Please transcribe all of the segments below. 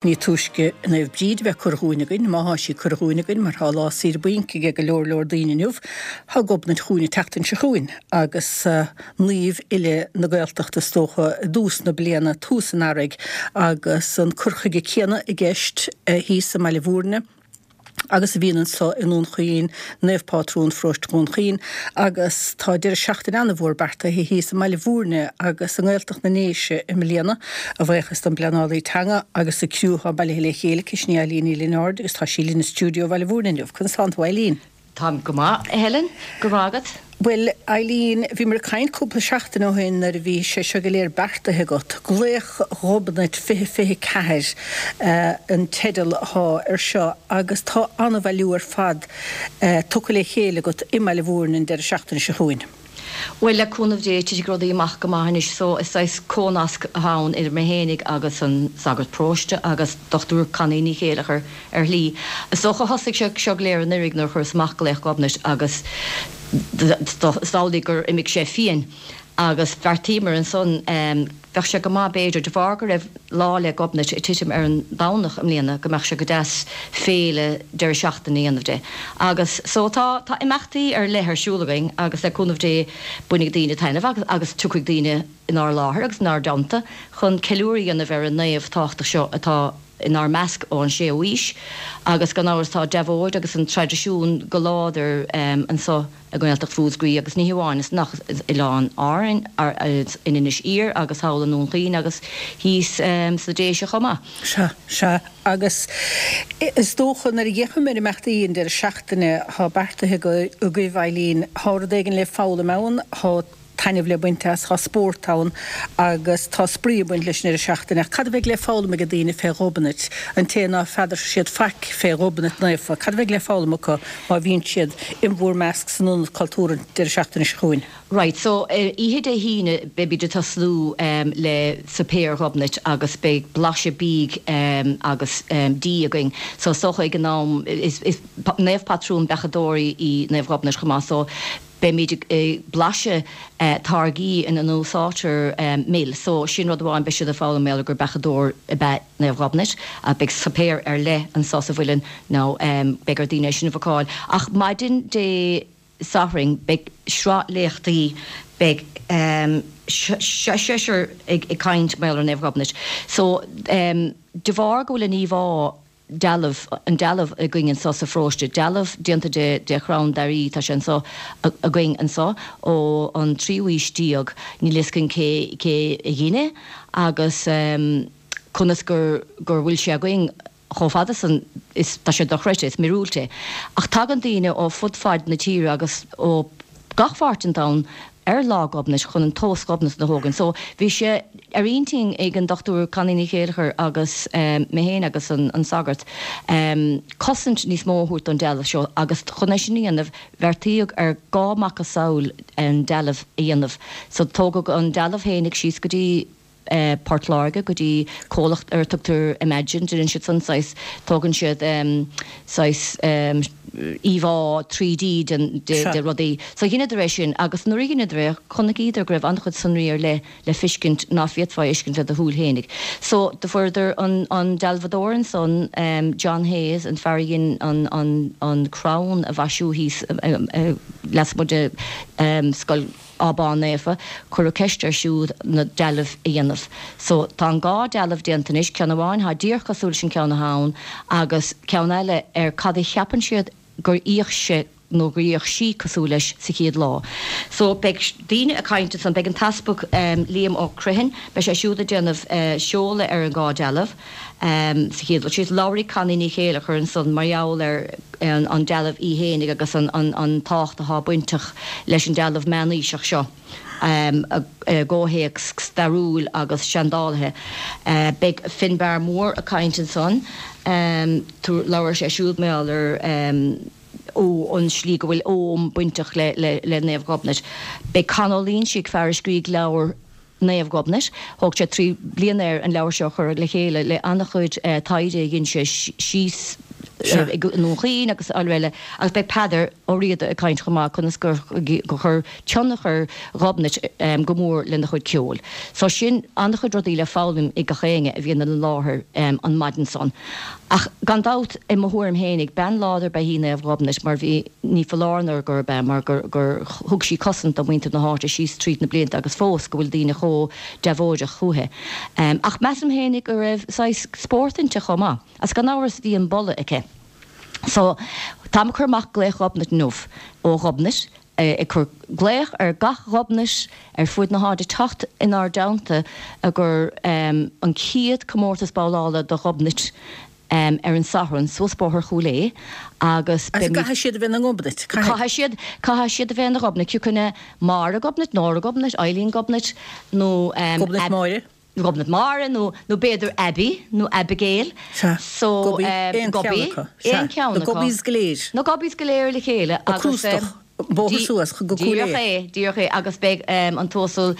Ní túisce Naomh Bríd a bheith curtha chugainn againn, má thá sí curtha chugainn againn, mar thá lá saoire bainc aige go leor leor daoine inniu, thá Gobnait chugainn an tseachtain seo chugainn, agus naomh uile na Gaeltachta is dócha i dtús na bliana, tús an earraigh, agus an cur chuige céanna i gceist thíos i mBaile Bhúirne. agus a bhíonn anso i nDún Chaoin, Naomh Pátrún Pharóiste Dhún Chaoin, agus tá deireadh seachtaine an-mhór beartaithe thíos i mBaile Bhúirne agus i nGaeltacht na nDéise i mbliana, a bhuíochas don bpleanálaí teanga agus an criú atá bailithe le chéile aici, sin í Eileen Ní Lionáird agus tá sí linn i stiúideo Bhaile Bhúirne inniu. Conas tánn tú, Eileen? Táim go maith, a Helen. Go raibh maith agat. Bhuel, Eileen, bhíomar ag caint cúpla seachtain ó shin nuair a bhí sé seo go léir beartaithe agat. Glaoch Ghobnait 2024 an teideal athá ar seo agus tá an-bhailiú ar fad tugtha le chéile agat i mBaile Bhúirne an deireadh seachtaine seo chugainn. Bhuel, le cúnamh Dé, titfidh rudaí amach go maith anois. So, is saghas comhnasc atá ann idir mé fhéinig agus an sagart paróiste agus Dochtúir Connie Ní Chéileachair ar shlí. Is dócha thosaigh sé seo go léir anuiridh nuair a chuireas amach Glaoch Ghobnait agus is amhlaidh gur imigh sé fiain agus bheartaíomar ansan bheadh sé go maith b'fhéidir, de bharr go raibh Lá 'le Gobnait ag titim ar an Domhnach i mbliana, go mbeadh sé go deas féile deireadh seachtaine a dhéanamh de. Agus so tá, tá imeachtaí ar leith ar siúl againn agus le cúnamh Dé bainfidh daoine taitneamh agus, agus tiocfaidh daoine inár láthair agus inár dteannta chun ceiliúradh a dhéanamh ar an naomh tábhachtach seo atá inár measc ón séú aois agus gan amhras tá deabhóid agus an traidisiún go láidir anso i nGaeltacht Mhúscraí agus ní hamháin san ach Oileáin Árainn, in Inis Oírr agus thall i nDún Chaoin agus thíos sna Déise chomh maith. Sea, sea. Agus is dócha nuair a fhéachaim ar imeachtaí an deireadh seachtaine atá beartaithe agaibh, Eileen, tá rud éigin le foghlaim ann, tá taitneamh le baint as, tá spórt ann agus tá spraoi ag baint leis an deireadh seachtaine. Ach cad a bheidh le foghlaim ag daoine fé Ghobnait, an té ná feadar siad faic fé Ghobnait Naofa, cad a bheidh le foghlaim acu má bhíonn siad in bhúr measc san Ionad Cultúrtha an deireadh seachtaine seo chugainn? Right, so ar oíche Dé hAoine beimid ag tosnú le suipéar Ghobnait agus beidh blaiseadh bídh agus dí againn. So is dócha ag an am, is naomh patrún beachadóirí í Naomh Ghobnait chomh maith so Beimid ag blaiseadh táirgí ina n-úsáidtear mil. So, sin rud amháin, beidh siad ag foghlaim mar gheall gur beachadóir ab ea Naomh Ghobnait. Beidh suipéar ar leith anso sa Mhuileann now beidh ar daoine é sin a bhookáil. Ach maidin Dé Sathairn beidh sraith léachtaí, beidh seisear ag caint mar gheall ar Naomh Ghobnait. So, de bharr go bhfuil an íomhá dealbh, an dealbh againn anso sa pharóiste, dealbh déanta de, de chrann dair, tá sé anso againn anso ó an tríú aois déag, níl fhios againn cé, cé a dhein é agus conas gur, gur bhfuil sé againn chomh fada san, is, tá sé dochreidte, is míorúilt é. Ach tagann daoine ó fud fad na tíre agus ó gach pháirt den domhan ar Lá Gobnait chun an tomhas Ghobnatan a thógaint. So bhí sé ar intinn ag an Dr Connie Ní Chéileachair agus mé féin agus an sagart cosaint níos mó a thabhairt don dealbh seo agus chun é sin a dhéanamh bheartaíodh ar dhá macasamhail an dealbh a dhéanamh. So tógadh an dealbh fhéinig síos go dtí Port Láirge go dtí comhlacht ar a tugtar Imagine, déanann siad san saghas, tógann siad saghas íomhá 3D den, de rudaí. So dheineadar é sin agus nuair a dheineadar é chonaicíodar go raibh an-chuid sonraí ar leith le feiscint ná féadfá a fheiscint le do shúil fhéinig. So do fuaireadar an, an dealbhadóir ansan, John Hayes, an fear a dhein an, an, an crann a mhaisiú thíos lasmuigh de Scoil, Abán Naofa, cuireadh ceist air siúd na dealbh a dhéanamh. So, tá an dhá dealbh déanta anois, ceann amháin thá díreach cosúil leis an ceann athá ann agus ceann eile ar cad a cheapann siad gur fhéach sé nó gur fhéach sí cosúil leis sa chéad lá. So, beidh daoine ag caint ansan, beidh an tEaspag Liam Ó Criomhthain, beidh sé siúd ag déanamh seoladh ar an dhá dealbh. Sa chéad dul síos, labharfaidh Connie Ní Chéileachair ansan mar gheall ar an dealbh í fhéinig agus an tábhacht athá bainteach leis an dealbh meánaoiseach seo i gcomhthéacs stairiúil agus seandálaithe. Beidh Finbarr Mór ag caint ansan, labharfaidh sé siúd mar gheall ar an slí go bhfuil Ogham bainteach le Naomh Ghobnait. Beidh Con Ó Loingsigh, fear a scrígh leabhar Naomh Gobnait. Thóg sé 3 bliana air an leabhar seo a chur le chéile le an-chuid taighde a dhein sé síos. i nDún Chaoin agus araile agus beidh Peadar Ó Riada ag caint chomh maith conas gur chuir tionchar Ghobnait go mór lena chuid ceoil. So sin an-chuid rudaí le foghlaim ag gach éinne a bhíonn ina láthair an maidin san. Ach gan dabht, i mo thuairim fhéinig, bean láidir ba ea í Naomh Ghobnait mar bhí, ní foláir nó gurb ea, mar gur gur thug sí cosaint do mhuintir na háite síos tríd na blianta agus fós go bhfuil daoine chomh deabhóideach chúithi. Ach measaim fhéinig go raibh saghas spórt inti chomh maith. Agus gan amhras bhí an boladh aici. So, táim ag cur amach glaoch Ghobnait inniu ó Ghobnait, ag cur glaoch ar gach Ghobnait ar fuaid na háite teacht inár dteannta i gcomhair an chéad comórtas babhlála do Ghobnait ar an Satharn suas Bóthar Chúil Aodha agus beimid. Caithfidh siad a bheith ina nGobnait, caithfidh. Caithfidh siad, caithfidh siad a bheith ina Ghobnait, cioca Máire Gobnait, Nóra Gobnait, Eileen Gobnait nó. Gobnait Máire. Gobnait Máire nó nó b'fhéidir Abby nó Abigail. Sea. So, Gobby, aon cheann acu. Sea. Aon cheann acu. Na Gobbies go léir. Na Gobbies go léir le chéile agus. Crústach, bóthar suas go Cúil Aodha. Díreach é, díreach é agus beidh an tUasal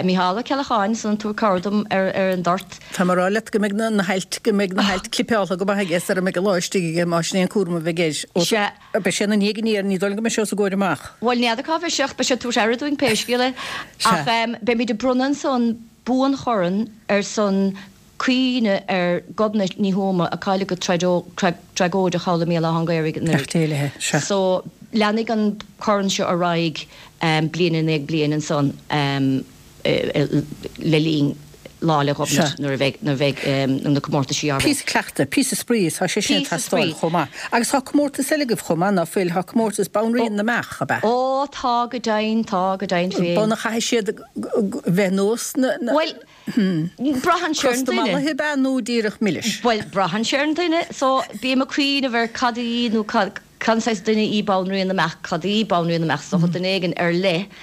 Micheál Ó Ceallacháin ansan ag tabhairt cabhair dom ar ar an dort. Tá mé ag rá leat go mbeidh na hailt, go mbeidh na hailt clipeáltha go maith aige sara mbeidh an lá istigh aige más sin é an cúram a bheidh air. Sea. Beidh sé ina ndiaidh aniar, ní dóigh liom go mbeidh sé os a gcomhair amach. Bhuel, n'fheadar cá bheidh sé ach beidh sé ag tabhairt aire dúinn pé scéal é. Ach beimid ag bronnadh ansan buanchorn ar son cuimhne ar Ghobnait Ní Thuama a cailleadh go tragóideach thall i mBéal Átha an Ghaorthaidh anuraidh. Beannacht Dé léi, sea. So, leanfaidh an corn seo ar aghaidh bliain i ndiaidh bliain ansan. le linn Lá 'le Gobnait nuair a bheidh nuair a bheidh na comórtaisí á rith. Píosa cleachtaidh, píosa spraoi, tá sé sin ag teastáil chomh maith. Agus tá comórtas eile agaibh chomh maith, ná fuil? Tá comórtas Banríon na mBeach, ab ea? Ó, tá go deimhin, tá go deimhin féin. B'ionadh chaithfidh siad bheith nós na. Bhuel, braitheann sé ar an duine. Crosta mallaithe ab ea nó díreach milis? Bhuel, braitheann sé ar an duine. So, bím ag cuimhneamh ar cad í nó cad. Cén saghas duine í Banríon na mBeach? Cad í Banríon na mBeach? Is dócha duine éigin ar leith.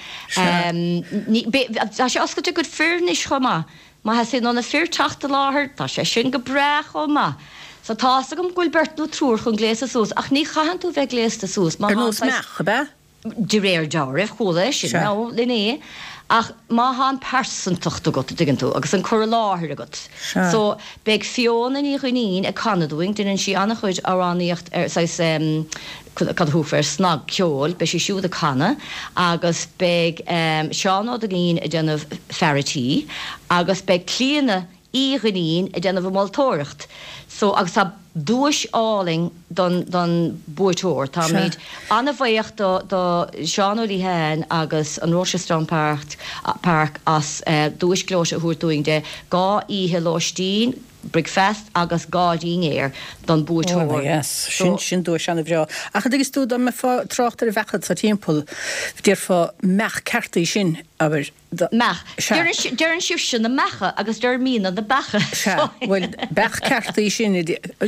Tá sé oscailte go fir anois chomh maith. Má theastaíonn ó na fir teacht i láthair, tá sé sin go breá chomh maith. So tá's agam go bhfuil beirt nó triúr chun gléasadh suas, ach ní chaitheann tú bheith gléasta suas má Ar nós meach, ab ea? De réir dealraimh, chuala é sin nó inné, ach má thá an pearsantacht agat, a dtuigeann tú, agus an cur i láthair agat. Sea. So, beidh Fiona Ní Dhuinnín ag canadh dúinn, deineann sí an-chuid amhránaíocht ar saghas em, cad a thabharfá air, snagcheol, beidh sí siúd ag canadh, agus beidh em, Seán Ó Duinnín ag déanamh fear a' tí, agus beidh Clíona Uí Dhuinnín ag déanamh an mholtóireacht. So, agus tá duais álainn don, don buaiteoir. Táimid an-bhuíoch do, do Seán Ó Liatháin agus an Rochestown Park, Park as duais gleoite a thabhairt dúinn de 2 oíche lóistín, bricfeast agus 2 dhinnéar don buaiteoir. Ó, yes. Sin, sin duais an-bhreá. Ach an dtuigeann tú, dá mbeifeá ag trácht ar bheacha sa timpeall, déarfá meach ceart í sin, abair. Meach. Sea. Deireann sibhse na meacha agus deirimidne na beacha. Sea. Bhuel, beach ceart í sin.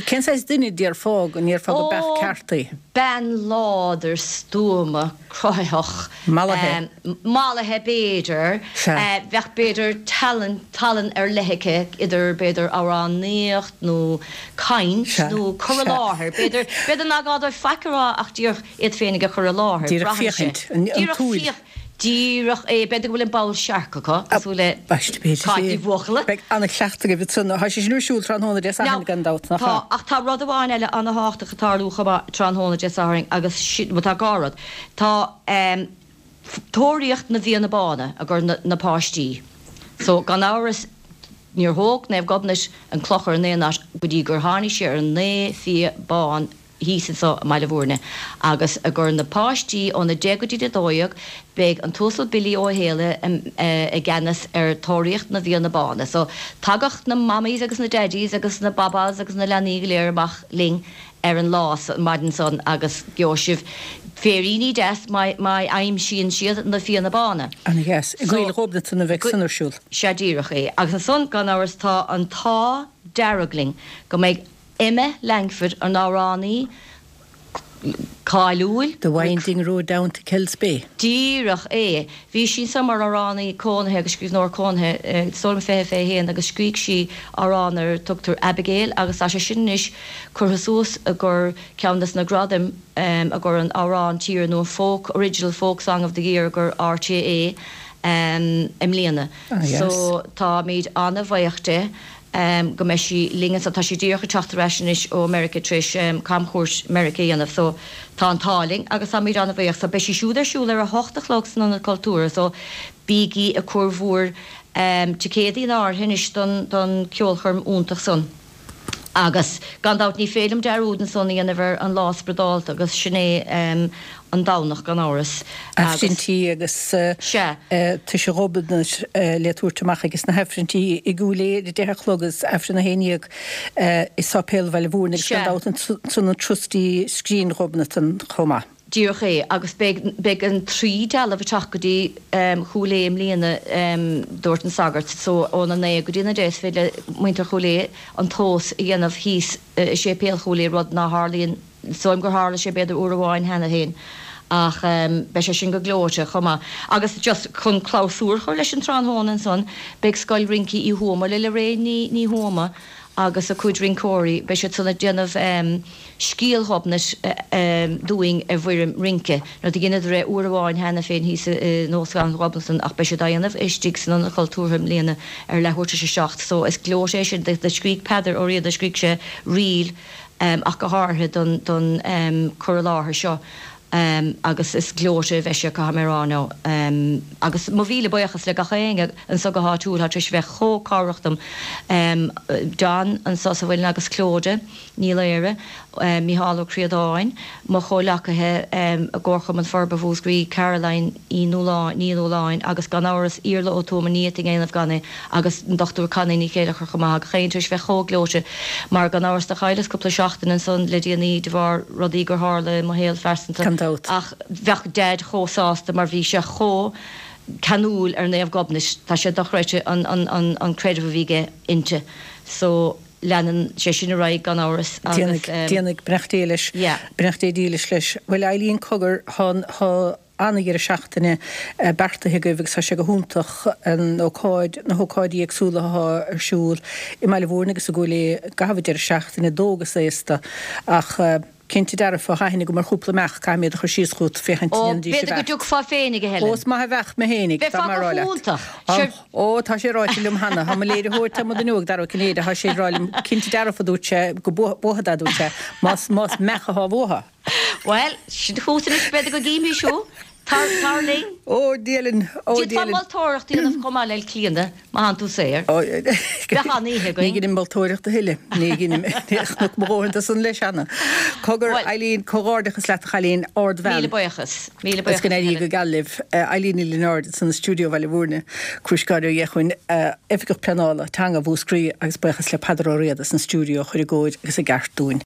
Cén saghas duine a déarfá go ndéarfá go beach ceart í? Ó, bean láidir, stuama, cruthaitheach. Mallaithe. Mallaithe, b'fhéidir. Sea. Bheadh, b'fhéidir, tallann, tallann ar leith aici, idir, b'fhéidir, amhránaíocht nó caint nó cur i láthair. B'fhéidir, b'fhéidir nach gá dóibh faic a rá ach díreach iad féinig a chur i láthair. Díreach féachaint, an tsúil. Díreach é. B'fhéidir go bhfuil an ball searc acu, cosúil le Cáit Ní Bhuachalla. Beidh an-chleachtadh agaibh ansan. Tá sé sin ar siúl tráthnóna Dé Sathairn gan dabht, nach ea? Tá, ach tá rud amháin eile an-thábhachtach ag tarlú chomh maith tráthnóna Dé Sathairn agus sin, bhuel tá dhá rud. Tá Tóraíocht na bhFianna Bána i gcomhair na páistí. So, gan amhras, níor thóg Naomh Gobnait an clochar in aon áit go dtí gur tháinig sé ar an naoi fia bán thíos anso i mBaile Bhúirne agus i gcomhair na páistí óna 10 go dtí 12 beidh an tUasal Billy Ó Héalaithe i gceannas ar Tóraíocht na bhFianna Bána. So tagadh na mammies agus na daddies agus na babás agus na leanaí go léir amach linn ar an lá an maidin san agus gheobhaidh sibh féiríní deas má aimsíonn siad na Fianna Bána. Ana dheas. I gCoill Ghobnatan a bheidh san ar siúl. Sea díreach é. Agus ansan gan amhras tá an t-ádh dearg linn go mbeidh Emma Langford, an amhránaí cáiliúil. The Winding Road Down to Kells Bay. Díreach é. Bhí sí anso mar amhránaí cónaithe agus scríbhneoir cónaithe, is dóigh liom 20, 21 agus scrígh sí amhrán ar a tugtar Abigail agus tá sé sin anois curtha suas i gcomhair ceann des na gradaim i gcomhair an amhrán tíre nó an folk, Original Folk Song of the Year i gcomhair RTÉ i mbliana. So táimid an-bhuíoch di. go mbeidh sí linn anso. Tá sí díreach ag teacht ar ais anois ó Meirice tar éis camchuairt Meirice a dhéanamh so tá an t-ádh linn agus táimid an-bhuíoch. So beidh sí siúd ar siúl ar a hocht a chlog san Ionad Cultúrtha so bígí ag cur bhur ticéadaí in áirithe anois don don ceolchoirm iontach san. Agus gan dabht ní féidir liom dearúd ansan a dhéanamh ar an lá spioradálta agus sin é an Domhnach gan amhras. Aifrinntí agus Tuise Ghobnait le tabhairt amach ages na hAifrinntí i gCúil Aodha ar a 10 a chlog agus Aifreann 11 i Sáipéal Bhaile Mhúirne agus gan dabht ansan an Trustee Scrín Ghobnatan chomh maith. Díreach é. Agus beidh, beidh an trí dealbh ag teacht go dtí Chúil Aodha i mbliana, dúirt an sagart. So óna 9 go dtí an 10 is féidir le muintir Chúil Aodha an tomhas a dhéanamh thíos i Séipéal Chúil Aodha, rud ná tharlaíonn, is dóigh liom gur tharla sé b'fhéidir uair amháin cheana féin. Ach beidh sé sin go gleoite chomh maith. Agus just chun clabhsúr a chur leis an tráthnóna ansan, beidh Scoil Rince Uí Thuama le Lorraine Ní, Ní Thuama agus a cuid rinceoirí, beidh siad san ag déanamh, Scéal Ghobnait dúinn i bhfoirm rince. Now do dheineadar é uair amháin cheana féin thíos in Óstlann Ghobnatan ach beidh siad á dhéanamh istigh san Ionad Cultúrtha i mbliana ar leathuair tar éis a 7 so is gleoite é sin. Do scrígh Peadar Ó Riada, scrígh sé ríl ach go háirithe don don cur i láthair seo agus is gleoite a bheidh sé caithfidh mé a rá now. Agus mo mhíle buíochas le gach éinne anso go háitiúil atá tar éis a bheith chomh cabhrach dom. John anso sa Mhuileann agus Clodagh. Ní Laoire, Mícheál Ó Críodáin, mo chomhleacaithe i gComharchumann Forbartha Mhúscraí, Caroline Uí Nualláin, Ní Nualláin agus gan amhras Iarla Ó Tuama, ní fhéadfainn a dhéanamh gan é, agus an Dr Connie Ní Chéilleachair chomh maith, gach éinne tar éis bheith chomh gleoite mar gan amhras do chailleas cúpla seachtain ansan le déanaí de bharr rudaí gur tharla i mo shaol phearsanta Gan dabht. ach bheadh Deaid chomh sásta mar bhí sé chomh ceanúil ar Naomh Gobnait, tá sé dochreidte an an an creideamh a bhí aige inti so. Leanann sé sin ar aghaidh gan amhras agus. Déanfaidh, beannacht Dé leis. Beannacht Dé dílis leis. Bhuel Eileen cogar, tá tá an-dheireadh seachtaine beartaithe agaibh agus tá sé go hiontach an ócáid, na hócáidí éagsúla atá ar siúl i mBaile Mhúirne agus i gCúil Aodha i gcaitheamh an deireadh seachtaine, d'óg is aosta ach cinnte dearfa, tá aithne agam ar chúpla meach, caithfidh mé iad a chur síos chugat féachaint Ó, an ndéanfaidís a b'fhéidir go bheart. dtiocfá féinig, a Helen. Ó, is maith a bheadh mé féinig, dá Bheifeá mbeadh go rá leat. hiontach. Sure. Ó, tá sé ráite liom cheana. Tá mo léiritheoir tá mo duine óg, Dara Ó Cinnéide, tá sé ag rá liom, cinnte dearfa, a dúirt sé, go buafad é, a dúirt sé, más, más meach atá uathu. Bhuel, sin chugat anois, b'fhéidir go gcífimís thú. Tar, tar linn. Ó, Dia linn, ó, Dia D'fhéadfá linn. moltóireacht a dhéanamh chomh maith le Clíona, má thánn tú saor. Bheadh an-oíche Ní againn. dheinim moltóireacht a thuilleadh. Ní dheinim. Chonac mo dhóthain de san leis cheana. Cogar, Bhuel. Eileen, comhghairdeachas leat a chailín, ardbhean. Míle buíochas. Míle Is go buíochas, a n-éirí Helen. go geal libh. Eileen Ní Lionáird ansan i stiúideo Bhaile Mhúirne, Crúiscáire Ó Dheachuin, Oifigeach Pleanála Teanga Mhúscraí agus buíochas le Peadar Ó Riada san stiúideo a chuir i gcóir agus i gceart dúinn.